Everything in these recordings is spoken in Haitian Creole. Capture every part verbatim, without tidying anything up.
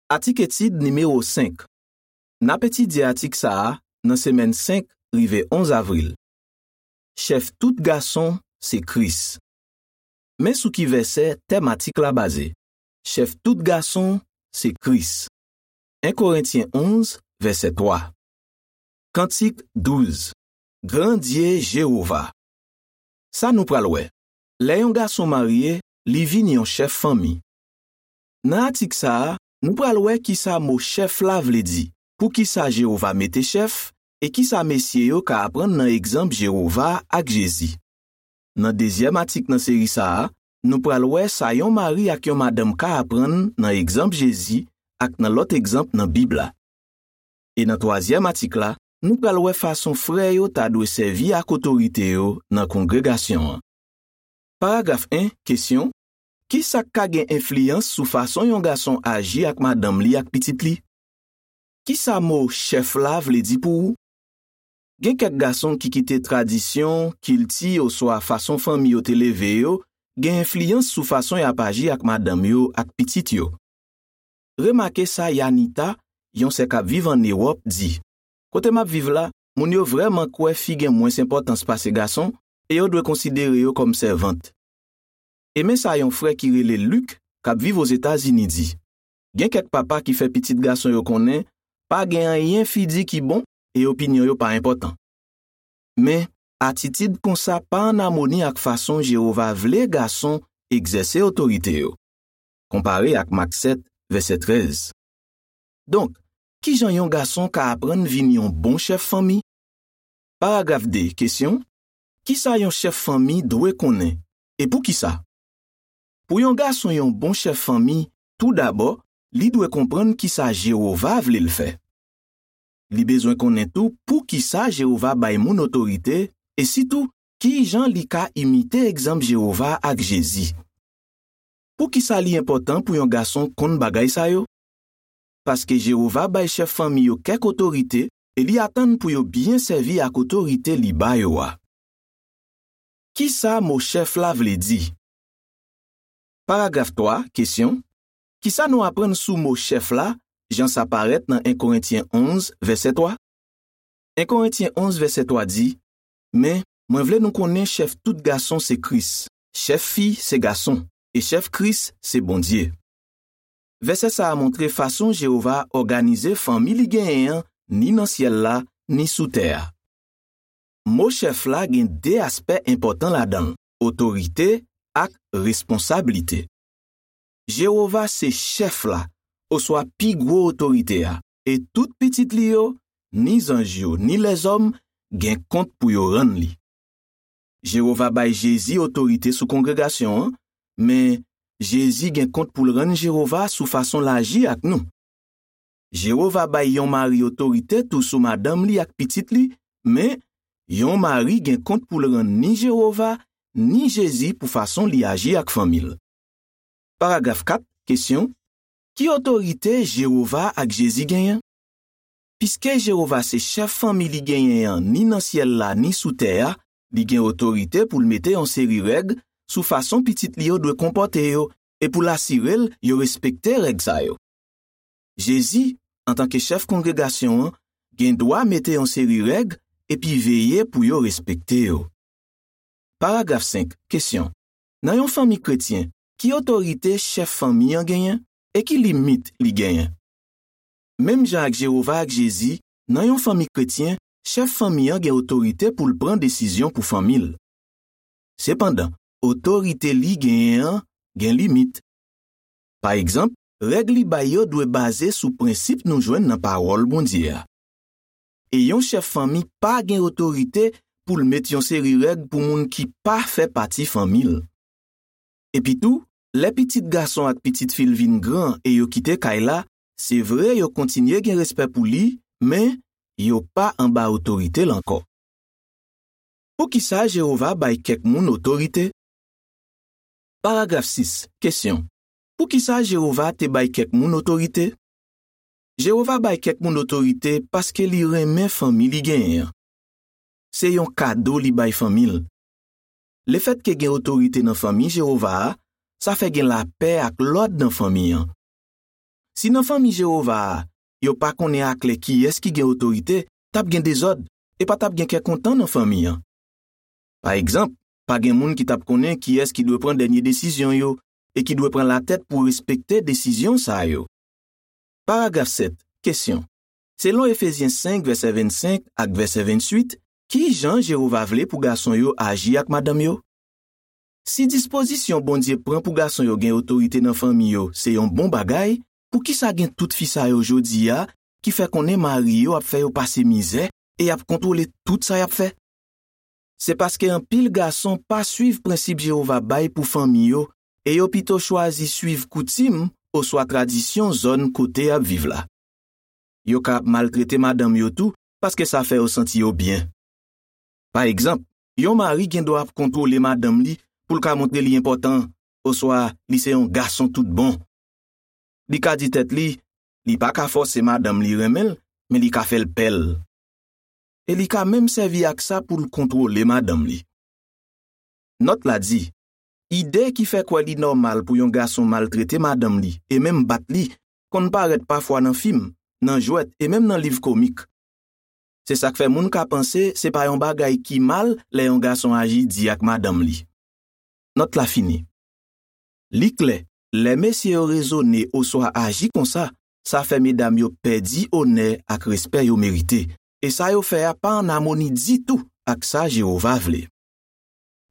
Atik etid nimewo senk. N ap etidye atik sa a nan semèn senk rive onz avril. Chèf tout gason se Kris. Men sou ki vèsè tèm atik la baze. Chèf tout gason se Kris. En Korentyen onz, vèsè twa. Kantik douz. Grandye Jewova. Sa nou pral wè. Lè yon gason marye, li vin yon chèf fanmi. Nan atik sa a, nou pral wè ki sa mo chèf la vle di, poukisa Jewova mete chèf, e ki sa mesye yo ka aprann nan egzanp Jewova ak Jezi. Nan dezyèm atik nan seri sa a, nou pral wè sa yon mari ak yon madanm ka aprann nan egzanp Jezi ak nan lòt egzanp nan Bib la. E nan twazyèm atik la, nou pral wè fason frè yo ta dwe sèvi ak otorite yo nan kongregasyon an. Paragraf en, kesyon: ki sa k ka gen enfliyans sou fason yon gason aji ak madanm li ak pitit li? Ki sa mo chèf la vle di pou ou? Gen kèk gason ki kite tradisyon, kilti oswa fason fanmi yo te leve yo gen enfliyans sou fason y ap aji ak madanm yo ak pitit yo. Remake sa Yanita, yon sè k ap viv ann Ewòp, di: kote m ap viv la, moun yo vrèman kwè fi gen mwens enpòtans pase gason e yo dwe konsidere yo kòm sèvant. E men sa yon frè ki rele Lik, k ap viv Ozetazini, di: gen kèk papa ki fè pitit gason yo konnen pa gen anyen fi di ki bon e opinyon yo pa enpòtan. Men, atitid konsa pa ann amoni ak fason Jewova vle gason egzèse otorite yo. Konpare ak Mak sèt, vèsè trèz. Donk, ki jan yon gason ka aprann vin yon bon chèf fanmi? Paragraf de, kesyon: ki sa yon chèf fanmi dwe konnen, e poukisa? Pou yon gason yon bon chèf fanmi, toudabò, li dwe konprann ki sa Jewova vle l fè. Li bezwen konnen tou poukisa Jewova bay moun otorite, e sitou, ki jan li ka imite egzanp Jewova ak Jezi. Poukisa li enpòtan pou yon gason konn bagay sa yo? Paske Jewova bay chèf fanmi yo kèk otorite e li atann pou yo byen sèvi ak otorite li ba yo a. Ki sa mo chèf la vle di? Paragraf twa, kesyon: ki sa nou aprann sou mo chèf la, jan sa parèt nan en Korentyen onz, vèsè twa? En Korentyen onz, vèsè twa di: men, mwen vle nou konnen chèf tout gason se Kris, chèf fi se gason, e chèf Kris se Bondye. Vèsè sa a montre fason Jewova òganize fanmi li genyen an, ni nan syèl la, ni sou tè a. Mo chèf la gen de aspè enpòtan ladan l: otorite ak responsablite. Jewova se chèf la, oswa pi gwo otorite a, e tout pitit li yo, ni zanj yo, ni lèzòm, gen kont pou yo rann li. Jewova bay Jezi otorite sou kongregasyon an, men Jezi gen kont pou l rann Jewova sou fason l aji ak nou. Jewova bay yon mari otorite tou sou madanm li ak pitit li, men yon mari gen kont pou l rann ni Jewova, ni Jezi pou fason li aji ak fanmi l. Paragraf kat, kesyon: ki otorite Jewova ak Jezi genyen? Piske Jewova se chèf fanmi li genyen an ni nan syèl la ni sou tè a, li gen otorite pou l mete yon seri règ sou fason pitit li yo dwe konpòte yo e pou l asire l yo respekte règ sa yo. Jezi, antanke chèf kongregasyon an, gen dwa mete yon seri règ epi veye pou yo respekte yo. Paragraf senk, kesyon: nan yon fanmi kretyen, ki otorite chèf fanmi an genyen e ki limit li genyen? Menm jan ak Jewova ak Jezi, nan yon fanmi kretyen, chèf fanmi an gen otorite pou l pran desizyon pou fanmi l. Sepandan, otorite li genyen an gen limit. Pa egzanp, règ li bay yo dwe baze sou prensip nou jwenn nan Pawòl Bondye a. E yon chèf fanmi pa gen otorite pou l met yon seri règ pou moun ki pa fè pati fanmi l. Epitou, lè pitit gason ak pitit fi l vin gran e yo kite kay la, se vre yo kontinye gen respè pou li, men yo pa anba otorite l ankò. Poukisa Jewova bay kèk moun otorite? Paragraf sis, kesyon: poukisa Jewova te bay kèk moun otorite? Jewova bay kèk moun otorite paske li renmen fanmi li genyen an. Se yon kado li bay fanmi l. Lefètke gen otorite nan fanmi Jewova a, sa fè gen lapè ak lòd nan fanmi an. Si nan fanmi Jewova a, yo pa konnen aklè kiyès ki gen otorite, t ap gen dezòd e pa t ap gen kè kontan nan fanmi an. Pa egzanp, pa gen moun ki t ap konnen kiyès ki dwe pran dènye desizyon yo e ki dwe pran latèt pou respekte desizyon sa yo. Paragraf sèt, kesyon. Selon Efezyen senk, vèsè vennsenk ak vèsè venntuit, ki jan Jewova vle pou gason yo aji ak madanm yo? Si dispozisyon Bondye pran pou gason yo gen otorite nan fanmi yo se yon bon bagay, poukisa gen tout fi sa yo jodi a ki fè konnen mari yo ap fè yo pase mizè e y ap kontwole tout sa y ap fè? Se paske anpil gason pa suiv prensip Jewova bay pou fanmi yo e yo pito chwazi suiv koutim oswa tradisyon zòn kote y ap viv la. Yo ka ap maltrete madanm yo tou paske sa fè yo santi yo byen. Pa egzanp, yon mari gen dwa ap kontwole madanm li pou l ka montre li enpòtan oswa li se yon gason tout bon. Li ka di tèt li, li pa ka fòse madanm li renmen l, men li ka fè l pè l. E li ka menm sèvi ak sa pou l kontwole madanm li. Nòt la di, ide ki fè kwè li nòmal pou yon gason maltrete madanm li e menm bat li konn parèt pafwa nan fim, nan jwèt e menm nan liv komik. Se sa k fè moun ka panse se pa yon bagay ki mal lè yon gason aji di ak madanm li. Nòt la fini. Li klè, lè mesye yo rezone oswa aji konsa, sa fè medam yo pèdi onè ak respè yo merite, e sa yo fè a pa ann amoni ditou ak sa Jewova vle.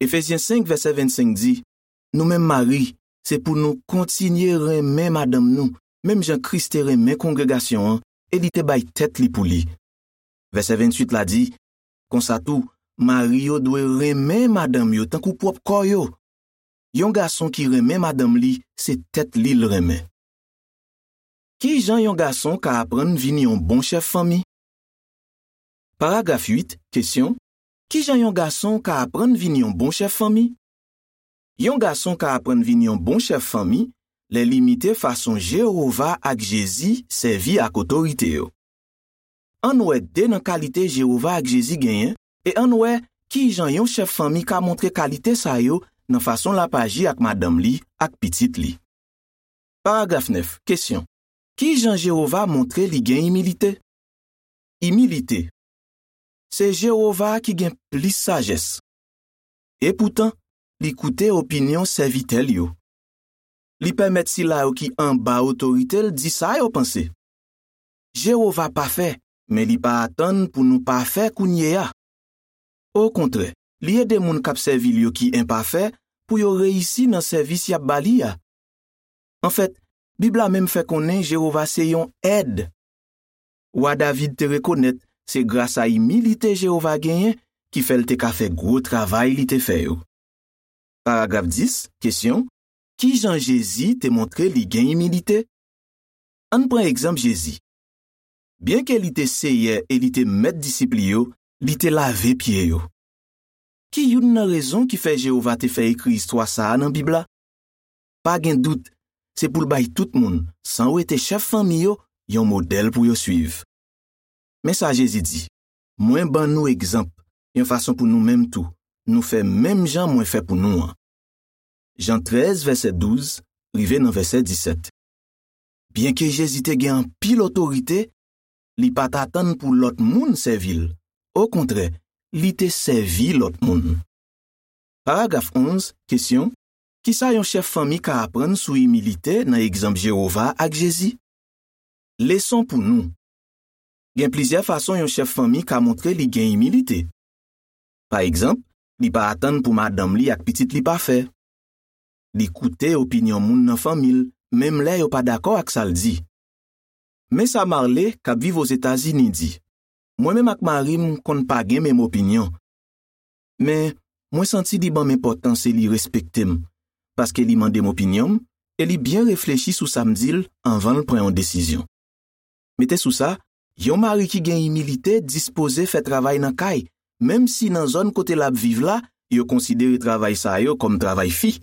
Efezyen senk, vèsè vennsenk di, nou menm mari, se pou nou kontinye renmen madanm nou, menm jan Kris te renmen kongregasyon an e li te bay tèt li pou li. Vèsè venntuit la di, konsa tou, mari yo dwe renmen madanm yo tankou pwòp kò yo. Yon gason ki renmen madanm li, se tèt li l renmen. Ki jan yon gason ka aprann vin yon bon chèf fanmi? Paragraf uit, kesyon, ki jan yon gason ka aprann vin yon bon chèf fanmi? Yon gason ka aprann vin yon bon chèf fanmi lè l imite fason Jewova ak Jezi sèvi ak otorite yo. Ann wè de nan kalite Jewova ak Jezi genyen e ann wè ki jan yon chèf fanmi ka montre kalite sa yo nan fason l ap aji ak madanm li ak pitit li. Paragraf nèf, kesyon. Ki jan Jewova montre li gen imilite? Imilite. Se Jewova ki gen plis sajès. Epoutan, li koute opinyon sèvitè l yo. Li pèmèt sila yo ki anba otorite l di sa yo panse. Jewova pafè, men li pa atann pou nou pafè kounye a. Okontrè, li ede moun k ap sèvi l yo ki enpafè pou yo reyisi nan sèvis y ap ba li a. Anfèt, Bib la menm fè konnen Jewova se yon èd. Wa David te rekonèt se gras a imilite Jewova genyen ki fè l te ka fè gwo travay li te fè yo. Paragraf dis, kesyon, ki jan Jezi te montre li gen imilite? Ann pran egzanp Jezi. Byenke li te Seyè e li te Mèt disip li yo, li te lave pye yo. Ki youn nan rezon ki fè Jewova te fè ekri istwa sa a nan Bib la? Pa gen dout, se pou l bay tout moun, san wete chèf fanmi yo, yon modèl pou yo suiv. Men sa Jezi di, mwen ban nou egzanp, yon fason pou nou menm tou, nou fè menm jan mwen fè pou nou an. Jan trèz, vèsè douz, rive nan vèsè disèt. Byenke Jezi te gen anpil otorite, li pa t atann pou lòt moun sèvi l. Okontrè, li te sèvi lòt moun. Paragraf onz, kesyon, ki sa yon chèf fanmi ka aprann sou imilite nan egzanp Jewova ak Jezi? Leson pou nou. Gen plizyè fason yon chèf fanmi ka montre li gen imilite. Pa egzanp, li pa atann pou madanm li ak pitit li pafè. Li koute opinyon moun nan fanmi l, menm lè yo pa dakò ak sa l di. Men sa Marley, k ap viv Ozetazini, di, mwen menm ak mari m konn pa gen menm opinyon. Men, mwen santi li ban m enpòtans e li respekte m, paske li mande m opinyon m e li byen reflechi sou sa m di l anvan l pran yon desizyon. Mete sou sa, yon mari ki gen imilite dispoze fè travay nan kay, menm si nan zòn kote l ap viv la, yo konsidere travay sa yo kòm travay fi.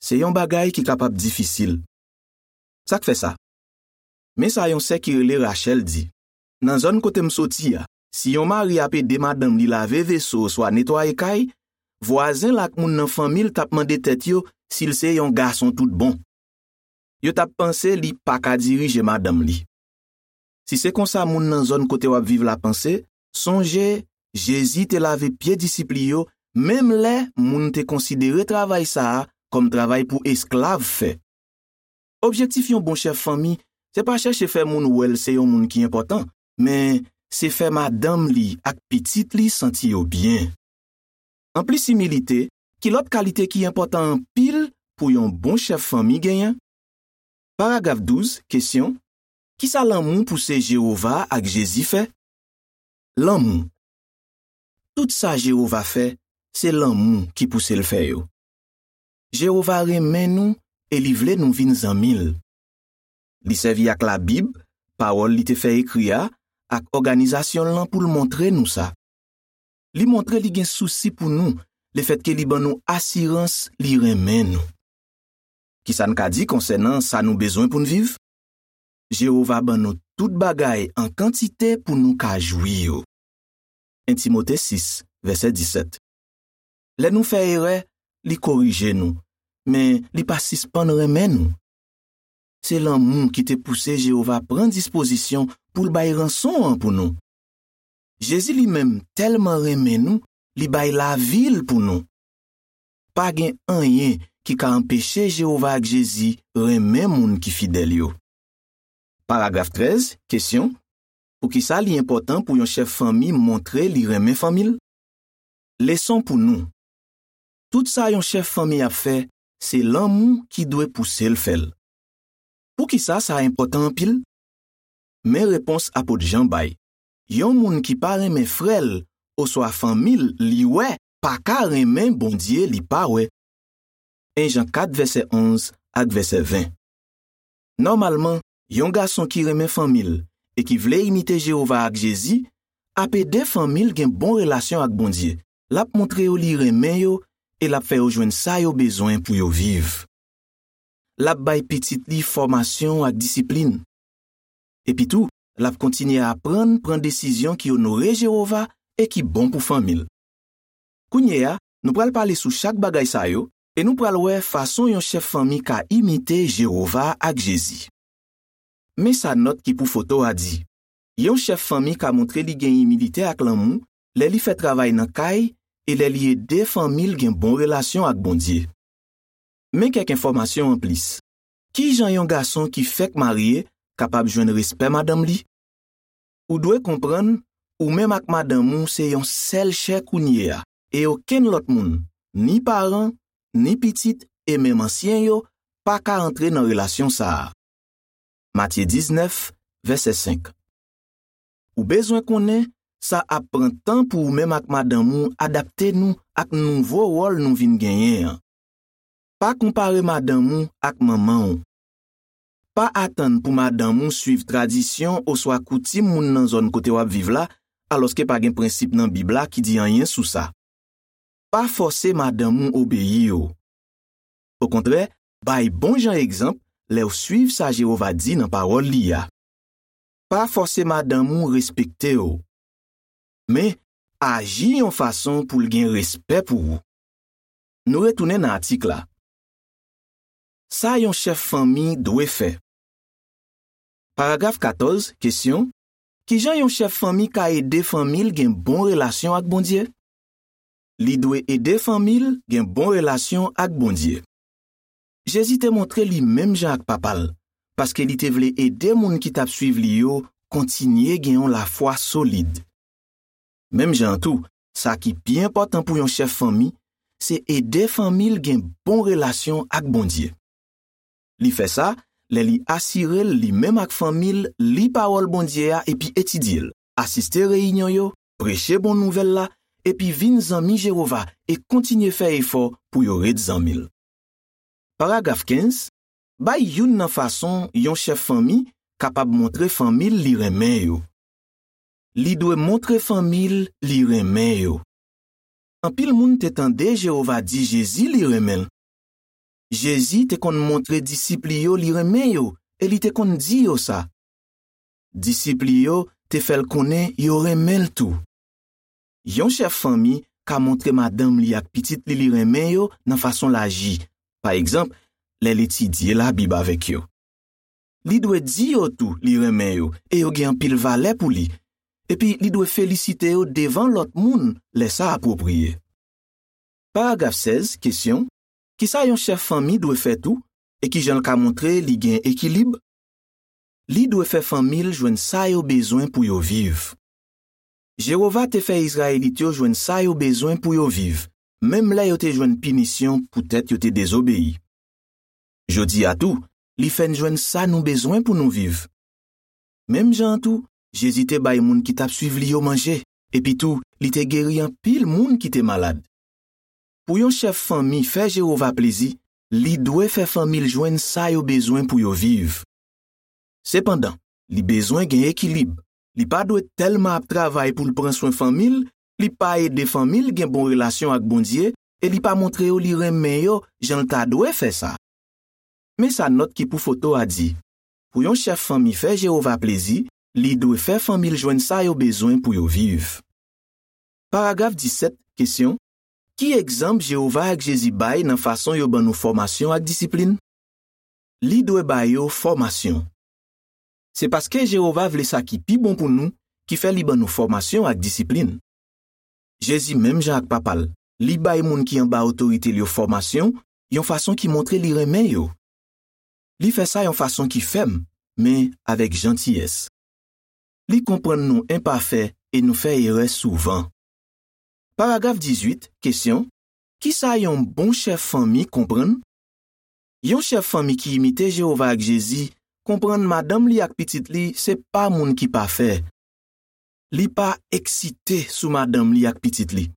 Se yon bagay ki kapab difisil. Sa k fè sa? Men sa yon sè ki rele Rachel di, nan zòn kote m soti a, si yon mari ap ede madanm li lave veso oswa netwaye kay, vwazen l ak moun nan fanmi l t ap mande tèt yo si l se yon gason tout bon. yo t ap panse li pa ka dirije madanm li. Si se konsa moun nan zòn kote w ap viv la panse, sonje, Jezi te lave pye disip li yo, menm lè moun te konsidere travay sa a kòm travay pou esklav fè. Objektif yon bon chèf fanmi, se pa chèche fè moun wè l se yon moun ki enpòtan, men se fè madanm li ak pitit li santi yo byen. Anplis imilite, ki lòt kalite ki enpòtan anpil pou yon bon chèf fanmi genyen? Paragraf douz, kesyon, ki sa lanmou pouse Jewova ak Jezi fè? Lanmou. Tout sa Jewova fè, se lanmou ki pouse l fè yo. Jewova renmen nou e li vle nou vin zanmi l. Li sèvi ak Labib, pawòl li te fè ekri a, ak òganizasyon l lan pou l montre nou sa. Li montre li gen sousi pou nou, lefètke li ban nou asirans li renmen nou. Ki sa n ka di konsènan sa nou bezwen pou n viv? Jewova ban nou tout bagay an kantite pou nou ka jwi yo. En Timote sis, vèsè disèt. Lè nou fè erè, li korije nou, men li pa sispann renmen nou. Se lanmou ki te pouse Jewova pran dispozisyon pou l bay ranson an pou nou. Jezi li menm tèlman renmen nou, li bay lavi l pou nou. Pa gen anyen ki ka anpeche Jewova ak Jezi renmen moun ki fidèl yo. Paragraf trèz, kesyon, poukisa li enpòtan pou yon chèf fanmi montre li renmen fanmi l? Leson pou nou. Tout sa yon chèf fanmi ap fè, se lanmou ki dwe pouse l fè l. Poukisa sa enpòtan anpil? Men repons apot Jan bay. Yon moun ki pa renmen frè l oswa fanmi l li wè pa ka renmen Bondye li pa wè. En Jan kat, vèsè onz ak vèsè ven. Nòmalman, yon gason ki renmen fanmi l e ki vle imite Jewova ak Jezi ap ede fanmi l gen bon relasyon ak Bondye. L ap montre yo li renmen yo e l ap fè yo jwenn sa yo bezwen pou yo viv. L ap bay pitit li fòmasyon ak disiplin. Epitou, l ap kontinye aprann pran desizyon ki onore Jewova e ki bon pou fanmi l. Kounye a, nou pral pale sou chak bagay sa yo e nou pral wè fason yon chèf fanmi ka imite Jewova ak Jezi. Men sa nòt ki pou foto a di. Yon chèf fanmi ka montre li gen imilite ak lanmou lè li fè travay nan kay e lè li ede fanmi l gen bon relasyon ak Bondye. Men kèk enfòmasyon anplis. Ki jan yon gason ki fèk marye kapab jwenn respè madanm li? Ou dwe konprann, ou menm ak madanm ou se yon sèl chè kounye a, e okenn lòt moun, ni paran, ni pitit, e menm ansyen yo, pa ka antre nan relasyon sa a. Matye diznèf, vèsè senk. Ou bezwen konnen sa ap pran tan pou ou menm ak madanm ou adapte nou ak nouvo wòl nou vin genyen an. Pa konpare madanm ou ak manman w. Pa atann pou madanm ou suiv tradisyon oswa koutim moun nan zòn kote w ap viv la, alòske pa gen prensip nan Bib la ki di anyen sou sa. Pa fòse madanm ou obeyi w. Okontrè, bay bon jan egzanp lè w suiv sa Jewova di nan Pawòl li a. Pa fòse madanm ou respekte w. Men, aji yon fason pou l gen respè pou ou. Nou retounen nan atik la. Sa yon chèf fanmi dwe fè. Paragraf katòz, kesyon, ki jan yon chèf fanmi ka ede fanmi l gen bon relasyon ak Bondye? Li dwe ede fanmi l gen bon relasyon ak Bondye. Jezi te montre li menm jan ak Papa l, paske li te vle ede moun ki t ap suiv li yo kontinye gen yon lafwa solid. Menm jan an tou, sa ki pi enpòtan pou yon chèf fanmi, se ede fanmi l gen bon relasyon ak Bondye. Li fè sa lè li asire l li menm ak fanmi l li Pawòl Bondye a epi etidye l, asiste reyinyon yo, preche bon nouvèl la, epi vin zanmi Jewova e kontinye fè efò pou yo ret zanmi l. Paragraf kenz, bay youn nan fason yon chèf fanmi kapab montre fanmi l li renmen yo. Li dwe montre fanmi l li renmen yo. Anpil moun te tande Jewova di Jezi li renmen l. Jezi te konn montre disip li yo li renmen yo e li te konn di yo sa. Disip li yo te fè l konnen yo renmen l tou. Yon chèf fanmi ka montre madanm li ak pitit li li renmen yo nan fason l aji, pa egzanp, lè l etidye Labib avèk yo. li dwe di yo tou li renmen yo e yo gen anpil valè pou li, epi li dwe felisite yo devan lòt moun lè sa apwopriye. Paragraf sèz, kesyon: ki sa yon chèf fanmi dwe fè tou, e ki jan l ka montre li gen ekilib? Li dwe fè fanmi l jwenn sa yo bezwen pou yo viv. Jewova te fè Izrayelit yo jwenn sa yo bezwen pou yo viv, menm lè yo te jwenn pinisyon poutèt yo te dezobeyi. Jodi a tou, li fè n jwenn sa nou bezwen pou nou viv. Menm jan an tou, Jezi te bay moun ki t ap suiv li yo manje, epi tou, li te geri anpil moun ki te malad. Pou yon chèf fanmi fè Jewova plezi, li dwe fè fanmi l jwenn sa yo bezwen pou yo viv. Sepandan, li bezwen gen ekilib. Li pa dwe tèlman ap travay pou l pran swen fanmi l, li pa ede fanmi l gen bon relasyon ak Bondye e li pa montre yo li renmen yo jan l ta dwe fè sa. Men sa nòt ki pou foto a di: pou yon chèf fanmi fè Jewova plezi, li dwe fè fanmi l jwenn sa yo bezwen pou yo viv. Paragraf disèt, kesyon: ki egzanp Jewova ak Jezi bay nan fason yo ban nou fòmasyon ak disiplin? Li dwe ba yo fòmasyon. Se paske Jewova vle sa ki pi bon pou nou ki fè li ban nou fòmasyon ak disiplin. Jezi, menm jan ak Papa l, li bay moun ki anba otorite l yo fòmasyon yon fason ki montre li renmen yo. Li fè sa yon fason ki fèm, men avèk jantiyès. Li konprann nou enpafè e nou fè erè souvan. Paragraf dizuit, kesyon: ki sa yon bon chèf fanmi konprann? Yon chèf fanmi ki imite Jewova ak Jezi konprann madanm li ak pitit li se pa moun ki pafè. Li pa eksite sou madanm li ak pitit li.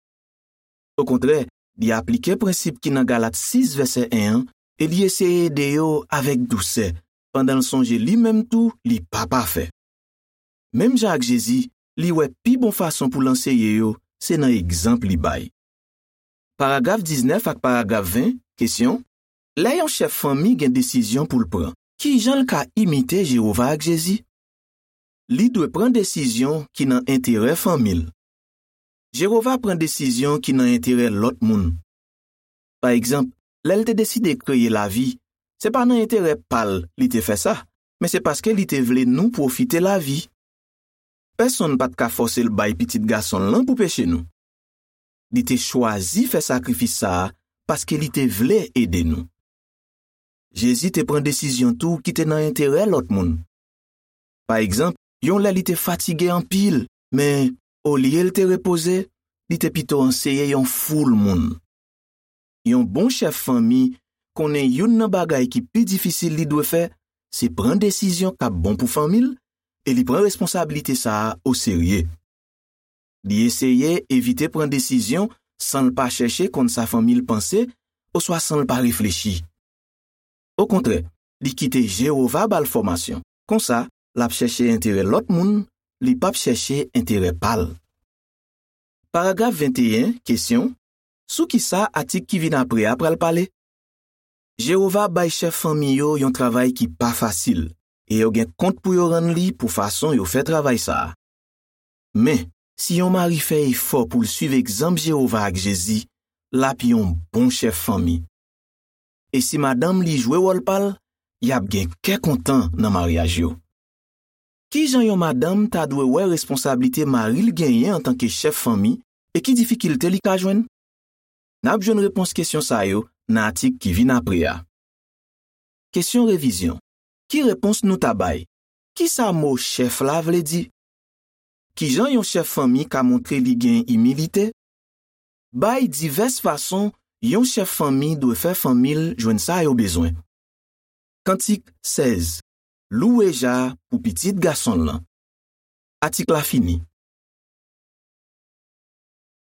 Okontrè, li aplike prensip ki nan Galat sis vèsè en an e li eseye ede yo avèk dousè, pandan l sonje li menm tou li pa pafè. Menm jan ak Jezi, li wè pi bon fason pou l anseye yo se nan egzanp li bay. Paragraf diznèf ak paragraf ven, kesyon: lè yon chèf fanmi gen desizyon pou l pran, ki jan l ka imite Jewova ak Jezi? Li dwe pran desizyon ki nan enterè fanmi l. Jewova pran desizyon ki nan enterè lòt moun. Pa egzanp, lè l te deside kreye lavi, se pa nan enterè pa l li te fè sa, men se paske li te vle nou pwofite lavi. Pèsonn pa t ka fòse l bay Pitit Gason l lan pou peche nou. Li te chwazi fè sakrifis sa a paske li te vle ede nou. Jezi te pran desizyon tou ki te nan enterè lòt moun. Pa egzanp, yon lè li te fatige anpil, men olye l te repoze, li te pito anseye yon foul moun. Yon bon chèf fanmi konnen youn nan bagay ki pi difisil li dwe fè, se pran desizyon k ap bon pou fanmi l, e li pran responsablite sa a oserye. Li eseye evite pran desizyon san l pa chèche konn sa fanmi l panse oswa san l pa reflechi. Okontrè, li kite Jewova ba l fòmasyon. Konsa, l ap chèche enterè lòt moun, li p ap chèche enterè pa l. Paragraf venteyen, kesyon: sou ki sa atik ki vin apre a pral pale? Jewova bay chèf fanmi yo yon travay ki pa fasil, e yo gen kont pou yo rann li pou fason yo fè travay sa a. Men, si yon mari fè efò pou l suiv egzanp Jewova ak Jezi, l ap yon bon chèf fanmi. E si madanm li jwe wòl pa l, y ap gen kè kontan nan maryaj yo. Ki jan yon madanm ta dwe wè responsablite mari l genyen antanke chèf fanmi, e ki difikilte li ka jwenn? N ap jwenn repons kesyon sa yo nan atik ki vin apre a. Kesyon revizyon: ki repons nou ta bay? Ki sa mo chèf la vle di? Ki jan yon chèf fanmi ka montre li gen imilite? Bay divès fason yon chèf fanmi dwe fè fanmi l jwenn sa yo bezwen. Kantik sèz: louwe Ja pou Pitit Gason l lan. Atik la fini.